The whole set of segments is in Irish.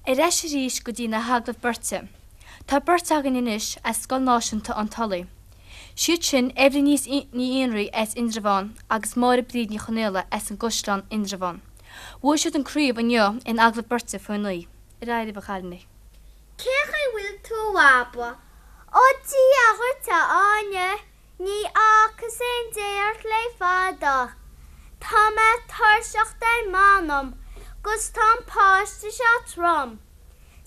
Ar ais arís go dtí na hagallaimh beirte. Tá beirt againn anois as Scoil Náisiúnta an Tulaigh. Siad sin Eibhlín Ní Fhionnraoi as Indreabhán agus Máire Bríd Ní Chonaola as an gCaisleán, Indreabhán. Bhuaigh siad an craobh inniu in agallamh beirte faoi 9. Ar aghaidh libh a chailíní. Cén chaoi a bhfuil tú a Bhaba? Ó Dia dhuit a Áine, ní fhacas aon dé ort le fada. Tá mé tuirseach ar m'anam 'gus tá an páiste seo trom.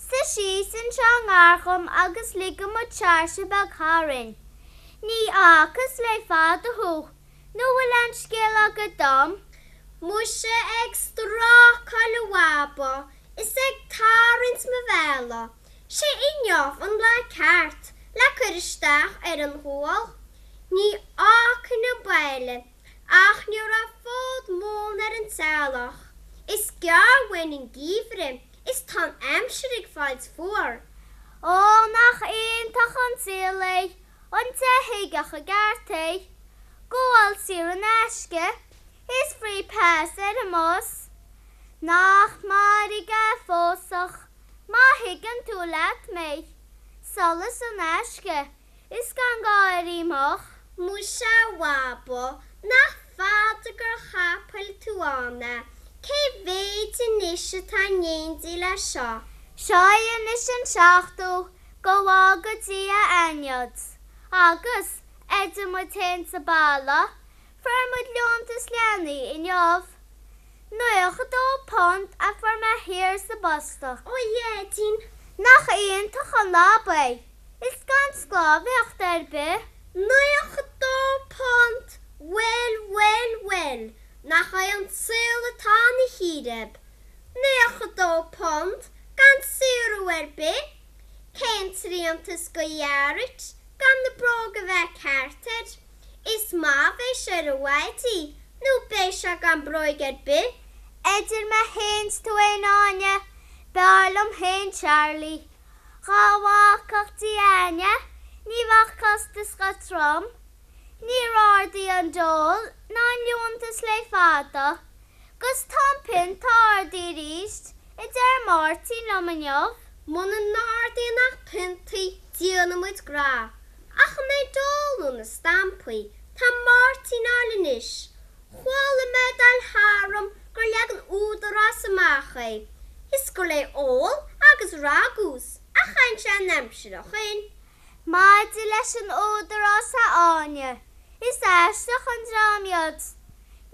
Suigh síos anseo i ngar dhom agus ligfidh muid searse beag tharainn. Ní fhacas le fada thú, nó bhfuil aon scéal agat dom? Muise ag strácáil a Bhaba is ag tarraingt mo bhéala, 'sé inniu an lá ceart le cur isteach ar an ghual. Ní fhágfainn an baile ach ní raibh fód móna ar an teallach. Is gearr uainn an geimhreadh is tá an aimsir ag fáilt fuar. Ó nach iontach an saol é, an té a thuigfeadh i gceart é. Gabháil saor in aisce is free pass ar an mbus. Nach mairg é pósadh má thuigeann tú leat mé. Solas in aisce is gan gá ar imeacht. Muise a Bhaba, nach fada gur chapaill tú ann é, cé mhéid anois atá in éindí leis seo? Seo é anois an seachtú, go bhfága Dia aithneod. Agus, idir muid féin sa baile, fuair muid liúntas leanaí inniu. £92 a fuair mé thiar sa bposta. Ó a Dhaidín! Nach iontach an lab é! Is gan sclábhaíocht ar bith. £92! Bhuel, bhuel, bhuel, nach é an saol atá ina chíréib. £92 gan saothrú ar bith! Cén tsrianta is go ghearrait gan na bróga bheith ceart air? Is maith a bheidh sé ar a mhaidí nó beidh sé gan bróig ar bith. Idir mé fhéin 's tú fhéin Áine, b'fhearr liom fhéin Charlie. Dhá bhfágfadh Dia aithne ní bheadh costas chomh trom. Níor ardaigh an dole ná an liúntas le fada. 'Gus tá an pionta ardaithe arís, a deir Máirtín liom inniu. Muna n-ardaíonn ach piontaí, déanfaidh muid grá. Ach an é dole nó na stampaí tá Máirtín a fháil anois? Chuala mé ag dul tharam gur leag an Údarás amach é, is gur le ól agus ragús a chaitheann sé an aimsir ó shoin. Maidir leis an Údarás a Áine, is aisteach an dream iad.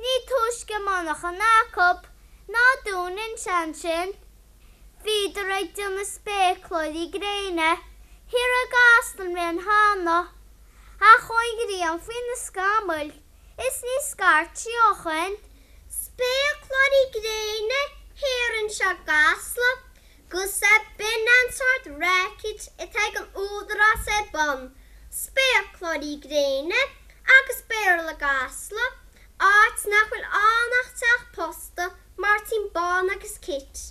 Ní túisce monarchan acub ná dúnann sé ansin. Bhíodar ag déanamh spéacláirí gréine thiar i gCasla an bhliain cheana, ach chuaigh an ghrian faoi na scamaill is ní scairt sí ó shoin. Spéacláirí gréine thiar anseo i gCasla, 'gus b'in an sórt racket atá ag an Údarás ar bun, spéacláirí gréine agus Béarla i gCasla, áit nach bhfuil ann ach teach posta Máirtín Bán agus Kit.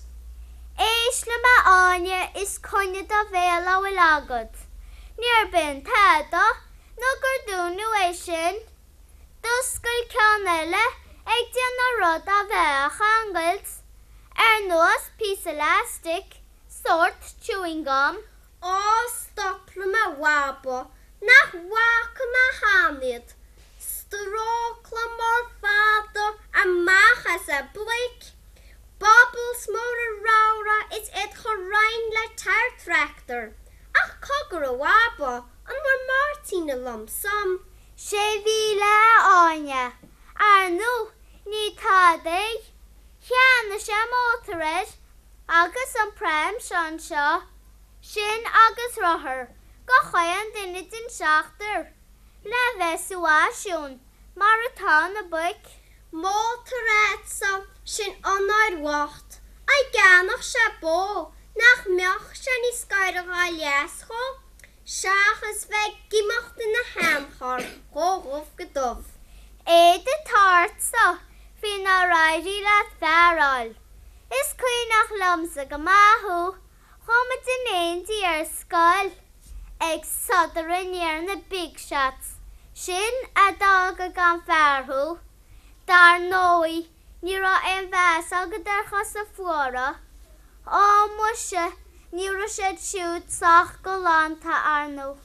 Éist liom a Áine is coinnigh do bhéal a bhfuil agat. Níor b'in tada nó gur dúnadh é sin. D'oscail ceann eile ag déanamh rud a bheith á cheangailt, ar nós píosa elastic, sórt chewing gum. Á stop liom a Bhaba, nach bhfaca mé cheana iad. Strócla mór fada amach as a bpluic, bubbles móra ramhra is iad chomh righin le tyre tractor. Ach cogar a Bhaba, an bhfuair Máirtín a lump sum? 6,000 a Áine. Ar ndú, ní tada é. Cheannaigh sé mótar air agus an pram seo anseo. Sin agus rothar go chaon duine den seachtar le bheith sa bhfaisiún mar atá na boic. Mótar a'dsa, sin onóir bhocht. Á gceannódh sé bó, nach mbeadh sé níos gaire dhá leas dhó, seachas bheith ag imeacht ina sheancharr ó dhubh go dubh. Éad atá ortsa faoi nár éirigh leat fear a fháil. Is cuimhneach liomsa go maith thú Chuaigh muid in éindí ar scoil ag sodar i ndiaidh na big shots, sin a d'fhága gan fear thú. Dar ndóigh, ní raibh aon mheas agat ar chosa fuara. Á, muise, ní raibh siad siúd sách galánta, ar ndóigh.